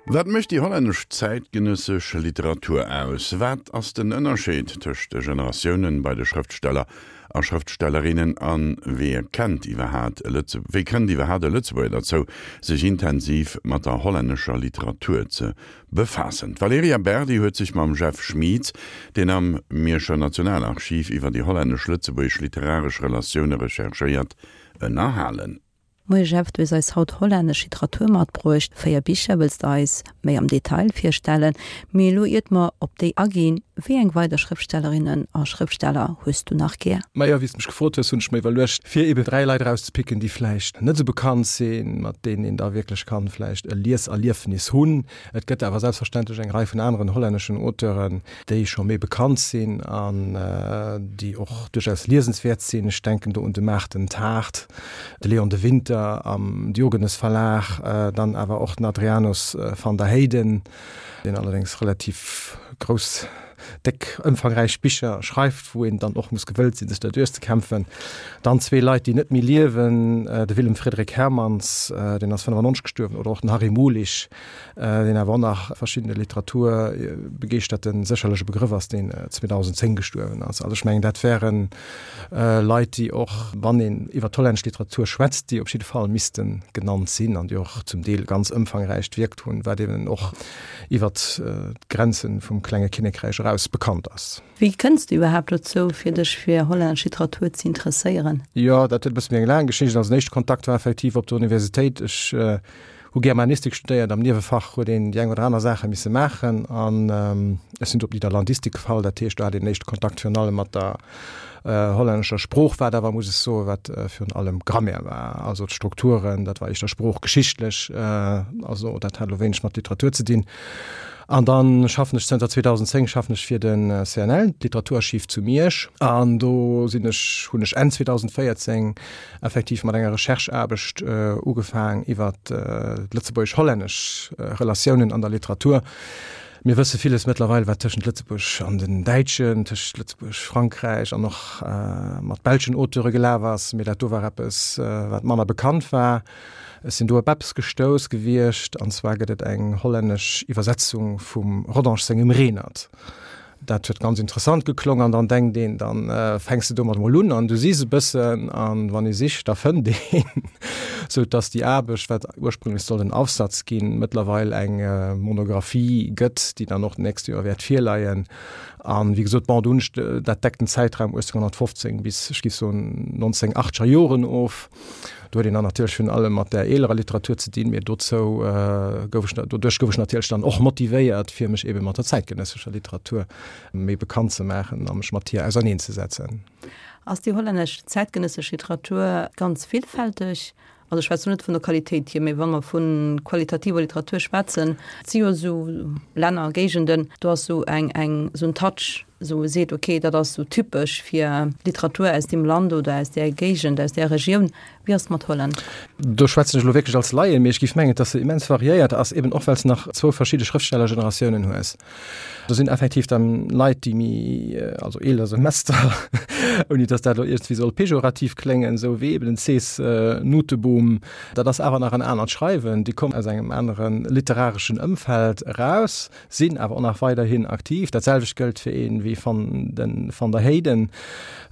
Wat mécht déi hollännesch zäitgenëssesch Literatur aus? Wat ass den Ënnerscheed tëscht de Generatiounen bei de Schrëftsteller a Schrëftstellerinnen a wéi kennt iwwerhaat e wéi kënnt iwwerhaat e Lëtzebuerger derzou, sech intensiv mat der hollännescher Literatur ze befaassen? D'Valerija Berdi huet sech mam Jeff Schmieds, deen am Mierscher Nationalarchiv iwwer déi hollännesch-lëtzebuergesch literaresch Relatioune recherchéiert, ënnerhalen. Moie Jeff, du hues eis haut hollännesch Literatur matbruecht. 4 Bicher wëlls de eis méi am Detail virstellen. Mee elo iert mer op déi aginn, wéi eng weider Schrëftstellerinnen a Schrëftsteller hues du nach gär? Majo, wéi s de mech gefrot hues, hunn ech mer iwwerluecht, fir eben 3 Leit erauszepicken, déi vläicht net esou bekannt sinn, mat deenen een da wierklech kann vläicht e Lieserliefnis hunn. Et gëtt awer selbstverständlech eng Rei vun aneren hollänneschen Auteuren, déi scho méi bekannt sinn an déi och duerchaus liesenswäert sinn. Ech denken do un de Maarten Taart, de Leon de Winter am Diogenes Verlag, dann awer och den Adrianus van der Heyden, deen allerdéngs relativ grouss, déck, ëmfangräich Bicher schreift, wou een dann och muss gewëllt sinn, sech der duerchzekämpfen. Dann zwee Leit, déi net méi liewen, de Willem Frederik Hermans, deen ass 95 gestuerwen, oder och den Harry Mulisch, deen awer och nach verschiddene Literaturbegeeschterte sécherlech e Begrëff ass, deen 2010 gestuerwen ass. Also ech mengen, dat wäre Leit, déi och, wann een iwwer d'hollännesch Literatur schwätzt, déi op jidde Fall misste genannt sinn an déi och zum Deel ganz ëmfangräicht wierkt hunn, wat eben och iwwer d'Grenze vum klenge Kinnekräich eraus bekannt ass. Wéi kënns de iwwerhaapt dozou, fir dech fir hollännesch Literatur ze interesséieren? Jo, dat huet e bësse méi eng laang Geschicht. Also den éischte Kontakt war effektiv op der Universitéit. Ech Hu Germanistik studéiert, am Niewefach huet een déi eng oder aner Saache misse maachen an ech sinn do op Nidderlandistik gefall. Dat heescht, do hat een den éischte Kontakt virun allem mat der hollännescher Sprooch, wat awer, muss ech soen, wat virun allem Grammaire war, also d'Strukturen, dat war éischter sproochgeschichtlech, also dat hat elo wéineg mat Literatur ze dinn. An da schaffen ech zënter 2010 schaffen ech fir de CNL, d'Literaturarchiv zu Miersch, an do sinn ech, hunn ech Enn 2014 effektiv mat enger Rechercheaarbecht ugefaang iwwer d'lëtzebuergesch-hollännesch Relatiounen an der Literatur. Mir wësse villes mëttlerweil, wat tëschent Lëtzebuerg an den Däitschen, tëschent Lëtzebuerg, Frankräich an och mat belschen Auteure gelaf ass, mee dat do war eppes, wat manner bekannt war. Ech sinn do op eppes gestouss gewiescht, an zwar gëtt et eng hollännesch Iwwersetzung vum Rodange sengem Renert. Dat huet ganz interessant geklong an dann denkt een, dann fänks de domat mol un an du sichs e bëssen an wann ee sicht, da fënnt een, sou dass déi Aarbecht, wat ursprünglech sollt en Aufsatz ginn, mëttlerweil eng Monographie gëtt, déi dann och d'nächst Joer wäert virleien. An wéi gesot, bon, do hunn ech, dat deckt den Zäitraum 1815 bis, ech géif soen, 1980er Joren of. Do huet een dann natierlech virun allem mat där eelerer Literatur ze dinn, mee dozou gouf ech, doduerch gouf ech natierlech dann och motivéiert, fir mech ebe mat der zäitgenëssescher Literatur méi bekannt ze maachen a mech mat hir auserneenzesetzen. Ass déi hollännesch zäitgenëssesch Literatur ganz villfälteg? Also ech schwätzen elo net vun der Qualitéit hier, mee wa mer vu qualitativer Literatur schwätzen, et si jo esou Länner, Géigenden, do ass esou eng, eng, esou en Touch, esou e seet, ok, dat ass esou typesch fir Literatur aus deem Land oder aus där Géigend, aus där Regioun. Wéi ass et mat Holland? Do schwätzen ech elo wierklech als Laien, mee ech géif mengen, dass se immens variéiert ass, eben och well s nach zwou verschidde Schrëftstellergeneratiounen hues. Do sinn effektiv dann Leit, déi méi, also eeler Semester, ouni dass dat elo iergendwéi soll pejorativ kléngen, esou wéi eben den Cees Nooteboom, dat ass awer nach en anert Schreiwen, déi kommen aus engem anere literareschen Ëmfeld eraus. Sinn awer och nach weiderhin aktiv. Dat selwecht gëllt fir een wéi van den Van der Heyden.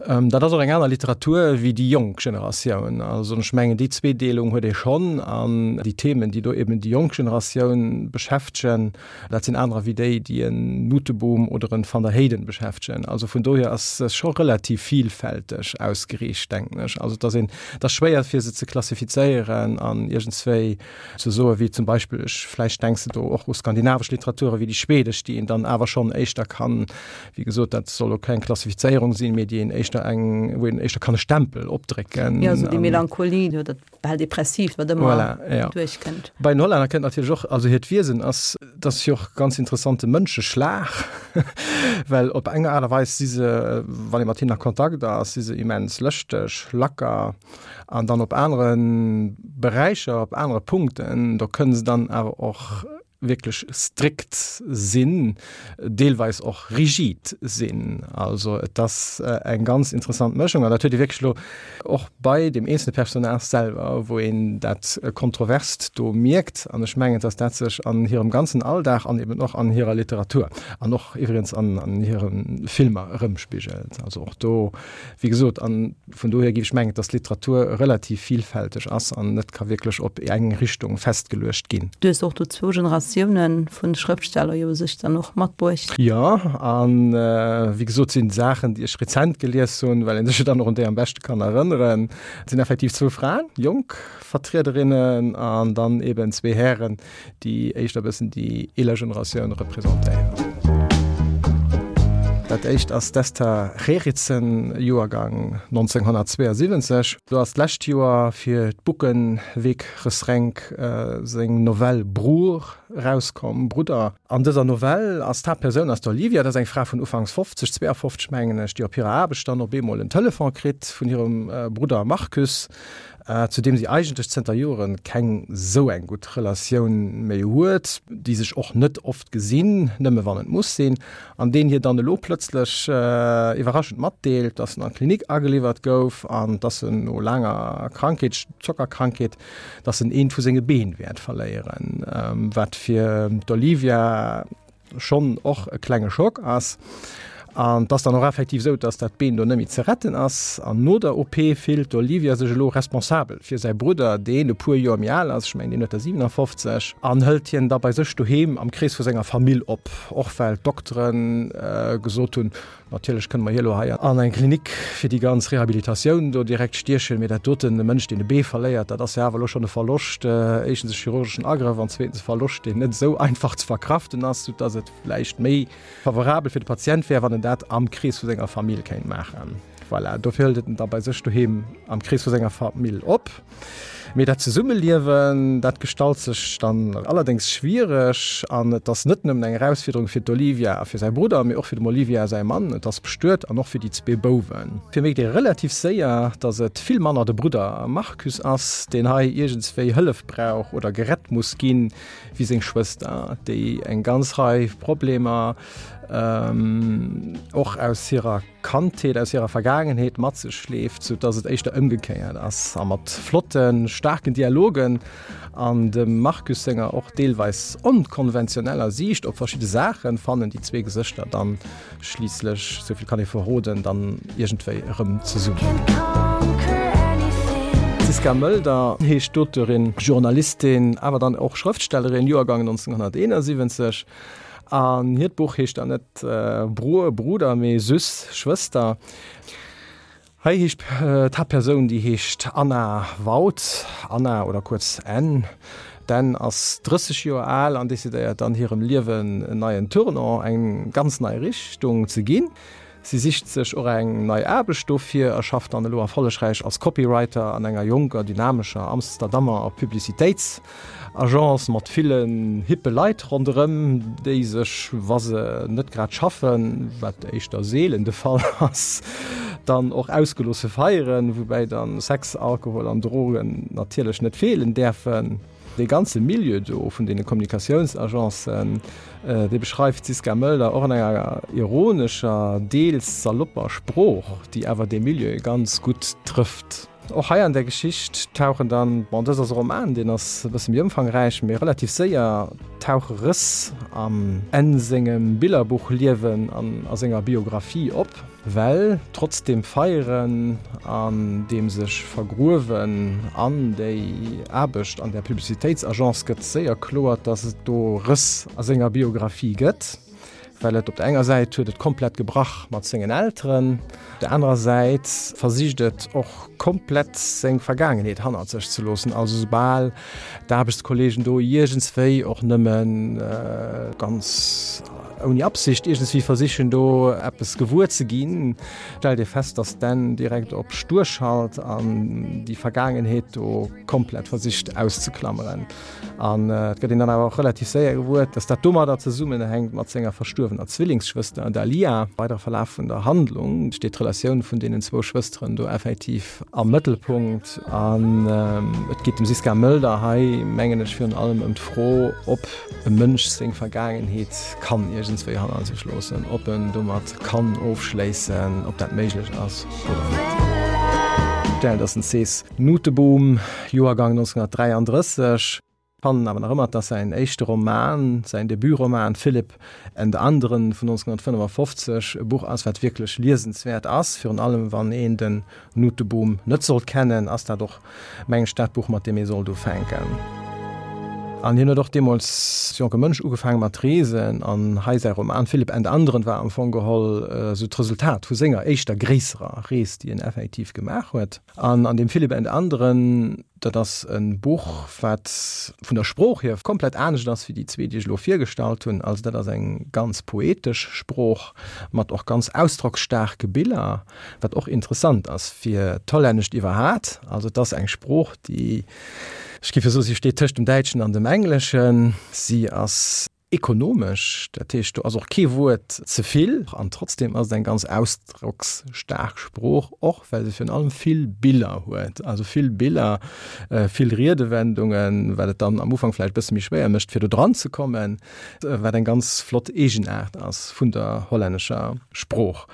Dat ass och eng aner Literatur wéi déi jonk Generatioun. Also ech mengen déi Zweedeelung huet ee schonn an déi Themen, déi do eben déi jonk Generatioun beschäftegen, dat sinn anerer wéi déi, déi en Nooteboom oder en Van der Heyden beschäftegen. Also vun dohier ass se scho relativ vielfälteg ausgeriicht, denken ech. Also et ass een, et ass schwéier fir se ze klassifizéieren an iergendswéi ze soe wéi zum Beispill, ech, vläicht denks de do och u skandinavesch Literature wéi déi schwedesch, déi een dann awer schonn éischter kann, wéi gesot, dat soll elo keng Klassifizéierung sinn, mee déi een éischter eng, wou een éischter kann e Stempel opdrécken. Jo, esou déi Melancholie oder dat bal Depressiivt, wat ëmmer voilà, ja. duerchkënnt. Bei den Hollänner kënnt natierlech och, also hiert Wiesen ass, dat ass jo och ganz interessante Mënscheschlag, well op eng Aart a Weis si se, wann ee mat hinnen a Kontakt ass, si se immens lëschteg, lacker, An dann op anere Beräicher, op anere Punkten, do kënne se dann awer och. wierklech strikt sinn, deelweis och rigid sinn. Also et ass eng ganz interessant Mëschung an dat huet ee wierklech elo och bei deem eenzelne Personnage selwer, wou een dat Kontroverst do mierkt. An ech mengen, dass dat sech an hirem ganzen Alldag an eben och an hirer Literatur an och iwwregens an hire Filmer erëmspigelt. Also och do, wéi gesot, an Vun dohier géif ech mengen, dass d'Literatur relativ vielfälteg ass an net ka wierklech op eng Richtung festgeluecht ginn. Du hues och do zwou Generatioune vu Schrëftsteller jo u sech dann och matbruecht. Jo, a wéi gesot sinn Saachen, déi ech rezent gelies hunn, well een sech jo dann och un déi am beschte kann erënneren, et sinn effektiv zwou Fraen, jonk Vertriederinnen, an dann eben zwee Hären, déi éischter e bëssen déi eeler Generatioun representéieren. Dat éischt ass d'Esther Gerritsen, Joergang 1972. Do ass d'lescht Joer fir d'Boekenweekgeschenk seng Novell Broer erauskomm, Brudder. An dëser Novell ass d'Haaptpersoun ass d'Olivia, dat ass eng Fra vun ufanks 50, 52 mengen ech, déi op hirer Aarbecht dann op eemol en Telefon kritt vun hirem Brudder Marcus, zu deem si eigentlech zënter Jore keng sou eng gutt Relatioun méi huet, déi sech och net oft gesinn, nëmme wann et muss sinn, an deen hir dann elo plëtzlech iwwerraschend matdeelt, dass en an d'Klinik ageliwwert gouf an dass en no laanger Krankheet, Zockerkrankheet, dass en eent vu senge Been wäert verléieren, wat fir d'Olivia schonn och e klenge Schock ass. An et ass dann och effektiv esou, dass dat Been do net méi ze retten ass. An no der OP fillt d'Olivia sech elo responsabel fir säi Brudder, deen e puer Joer méi al ass, ech mengen, deen huet der 57, an hëlt hien da bei sech doheem am Krees vu senger Famill op, och well d'Doktere gesot hunn, Natierlech kënne mer hie lo hei an eng Klinik fir déi ganz Rehabilitatioun do direkt stiechen, mee dat doten, e Mënsch, deen e Bee verléiert, dat ass jo awer elo schonn e Verloscht, éischtens e chirurgeschen Agrëff an zweetens e Verloscht, deen net esou einfach ze verkraften ass, soudass et vläicht méi favorabel fir de Patient wär, wann en dat am Krees vu senger Famill kéint maachen. Voilà, dofir hëlt et en da bei sech doheem am Krees vu senger Famill op. Mee dat Zesummeliewen, dat gestalt sech dann allerdéngs schwiereg an et ass net nëmmen eng Erausfuerderung fir d'Olivia a fir säi Brudder, mee och fir dem Olivia säi Mann, et ass bestuet, an och fir déi zwee Bouwen. Fir mierkt ee relativ séier, datt et vill manner de Brudder Marcus ass, deen hei iergendswéi Hëllef brauch oder gerett muss ginn, wéi seng Schwëster, déi eng ganz Rei Problemer och aus hirer Kandheet, aus hirer Vergaangenheet mat sech schleeft, sou dass et éischter ëmgekéiert ass. A mat flotten, staarken Dialogen an dem Marcus senger och deelweis onkonventioneller Siicht op verschidde Saachen fannen déi zwee Gesëschter dann schliisslech, sou vill kann ee verroden, dann iergendwéi erëm zesummen. D'Siska Mölder heescht d'Auteurin, Journalistin, awer dann och Schrëftstellerin, Joergang 1971. An hiert Buch heescht dann net Broer, Bruder, mee Süss, Schwëster. Hei heescht d'Haaptpersoun, déi heescht Anna Waut, Anna oder kuerz Ann. D'Ann ass 30 Joer al an decidéiert dann hirem Liewen en neien Tournant, eng ganz nei Richtung ze ginn. Si sicht sech och eng nei Aarbecht dofir a schafft dann elo erfollegräich als Copywriter an enger jonker, dynamescher Amsterdammer Publicitéitsagence mat villen hippe Leit ronderëm, déi sech, wa se net grad schaffen, wat éischter seelen de Fall ass, dann och ausgeloosse feieren, woubäi dann Sex, Alkohol an Drogen natierlech net feelen däerfen. Dee ganze Milieu do vun deene Kommunikatiounsagencen, dee beschreift d'Siska Mölder och an enger ironescher, deels salopper Sprooch, déi awer dee Milieu ganz gutt trëfft. Och hei an där Geschicht tauchen dann, bon, dëst ass e Roman, deen ass e bësse méi ëmfangräich, mee relativ séier tauche Rëss am Enn sengem Billerbuchliewen an a senger Biographie op. Well trotz deem Feieren an deem sech vergruewen an déi Aarbecht an där Publicitéitsagence gëtt séier kloer, datt et do Rëss a senger Biographie gëtt. Well et op der enger Säit huet et komplett gebrach mat sengen Elteren, op der anerer Säit versicht et och komplett seng Vergaangenheet hannert sech ze loossen. Also soubal d'Aarbechtskolleegen do iergendswéi och nëmme ganz. ouni Absicht iergendswéi versichen do eppes gewuer ze ginn, stellt ee fest, datt d'Anne direkt op stur schalt an déi Vergaangenheet do komplett versicht auszeklammeren. An et gëtt een dann awer och relativ séier gewuer, dass dat domadder zesummenhänkt mat senger verstuerwener Zwillingsschwëster Dalia. Weidere Verlaf vun der Handlung steet d'Relatioun vun deenen zwou Schwësteren do effektiv am Mëttelpunkt. An et geet dem Siska Mölder hei, mengen ech, virun allem ëm d'Fro, ob e Mënsch seng Vergaangenheet kann iergendswéi hanner sech loossen, ob en domat kann ofschléissen, ob dat méiglech ass oder net. Dat ass den Cees Nooteboom. Joergang 1933. Fannen awer nach ëmmer, dass säin éischte Roman, säin Debutroman Philipp en de anderen vun 1955 e Buch ass, wat wierklech liesenswäert ass. Virun allem wann een den Nooteboom net sollt kennen, ass dat och, mengen ech, dat Buch, mat deem ee sollt ufänken. An hien huet och deemools als jonke Mënsch ugefaange mat reesen an hei säi Roman Philipp en de anderen war am Fong geholl esou d'Resultat vu senger éischter gréisserer Rees, déi en effektiv gemaach huet. An an deem Philipp and anderen, dat ass e Buch, wat vun der Sprooch hier komplett anescht ass wéi déi zwee, déi ech elo virgestallt hunn. Also dat ass eng ganz poetesch Sprooch mat och ganz ausdrocksstaarke Biller, wat och interessant ass fir d'Hollännescht iwwerhat. Also et ass eng Sprooch, déi, ech géif jo soen, si steet tëscht dem Däitschen an dem Engleschen. Si ass. Ekonomesch, dat heescht do ass och kee Wuert ze vill an trotzdem ass et eng ganz ausdrocksstaark Sprooch, och well se virun allem vill Biller huet, also vill Biller, vill Riedewendungen, wat et dann am Ufank vläicht e bësse méi schwéier mécht fir do dran ze kommen, wat eng ganz flott Eegenaart ass vun der hollännescher Sprooch.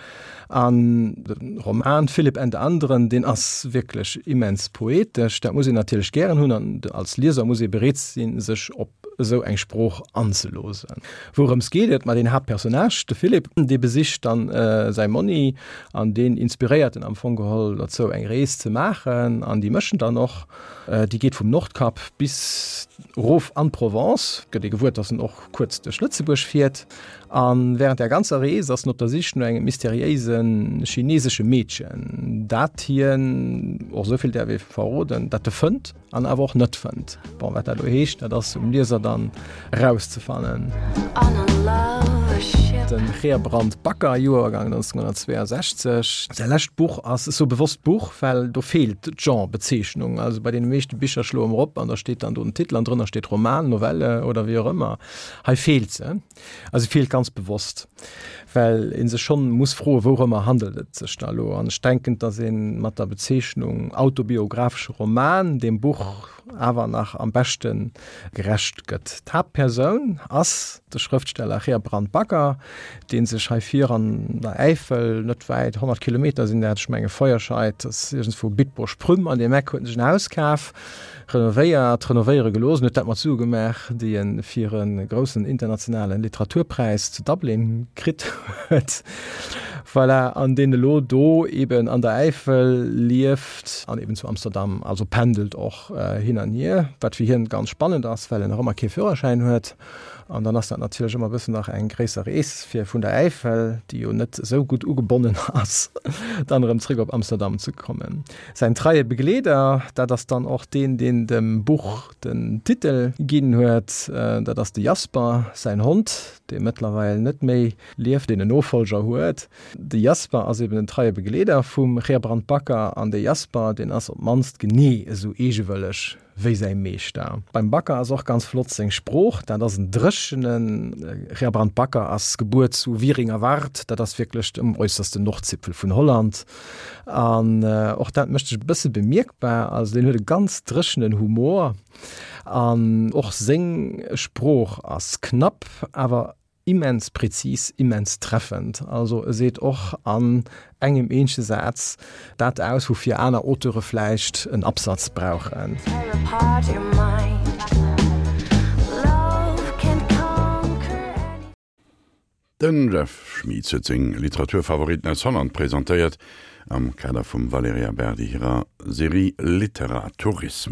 An de Roman Philipp and anderen, deen ass wierklech immens poetesch. Dat muss een natierlech gären hunn an als Lieser muss ee bereet sinn, sech op esou eng Sprooch anzeloosen. Wourëms geet et? Ma den Haaptpersonnage, de Philipp, dee besicht dann säi Monni an deen inspiréiert en am Fong geholl dozou, eng Rees ze maachen. An déi méchen dann och. Déi geet vum Nordkap bis erof an d'Provence. Gëtt ee gewuer, dass en och kuerz duerch Lëtzebuerg fiert. A wärend där ganzer Rees ass en op der Sich no engem mysteriéise chinesesche Meedchen, dat hien, och esou vill däerf ee verroden, dat e fënnt an awer och net fënnt. Bon, wat dat elo heescht, dat ass um Lieser dann erauszefannen. De Gerbrand Bakker, Joergang 1962. Säi lescht Buch ass, ech soe bewosst Buch, well do feelt d'Genrebezeechnung. Also bei deene meeschte Bicher schloe mer op an da steet dann do den Titel an drënner steet Roman, Novelle oder wéi och ëmmer. Hei feelt se. A se feelt ganz bewosst, well ee sech schonn muss froen, wourëmmer handelt et sech da elo? An ech denken, datt ee mat der Bezeechnung autobiographesche Roman deem Buch awer nach am beschte gerecht gëtt. D'Haaptpersoun ass de Schrëftsteller Gerbrand Bakker, dee sech hei vir an der Äifel, net wäit, 100 Kilometer sinn dat, ech menge Feuerscheid, ass iergendswou Bitburg-Prüm, an deem Eck huet en sech en Haus kaf. Renovéiert, renovéiere gelooss en huet dat mat Sue gemaach, déi e fir e groussen internationale Literaturpräis zu Dublin kritt huet. Voilà, an deen elo do eben an der Äifel lieft an eben zu Amsterdam, also pendelt och hin an hier, wat fir hien ganz spannend ass, well en nach ëmmer kee Führerschäin huet. An dann ass dat natierlech ëmmer e bëssen nach eng gréisser Rees, fir vun der Äifel, déi jo net esou gutt ugebonnen ass, dann erëm zréck op Amsterdam ze kommen. Säin treie Begleeder, dat ass dann och deen, deen dem Buch den Titel ginn huet, dat ass de Jasper, säin Hond, dee mëttlerweil net méi lieft, deen en Nofollger huet. De Jasper ass eben den treie Begleeder vum Gerbrand Bakker an de Jasper, deen ass op d'mannst genee esou eegewëlleg wéi säi Meeschter. Beim Bakker ass och ganz flott seng Sprooch, dat ass en dréchenen. Gerbrand Bakker ass gebuer zu Wieringerwart, dat ass wierklech um äussersten Nordzipfel vun Holland. An och dat mécht sech e bësse bemierkbar. Also deen huet e ganz dréchenen Humor an och seng Sprooch ass knapp, awer immens präzis, immens treffend. Also e seet och an engem eenzege Saz dat aus, woufir aner Auteure vläicht en Absatz brauchen. Den Jeff Schmitz huet seng Literaturfavoriten aus Holland presentéiert am Kader vum Valerija Berdi hirer Serie Literatourismus.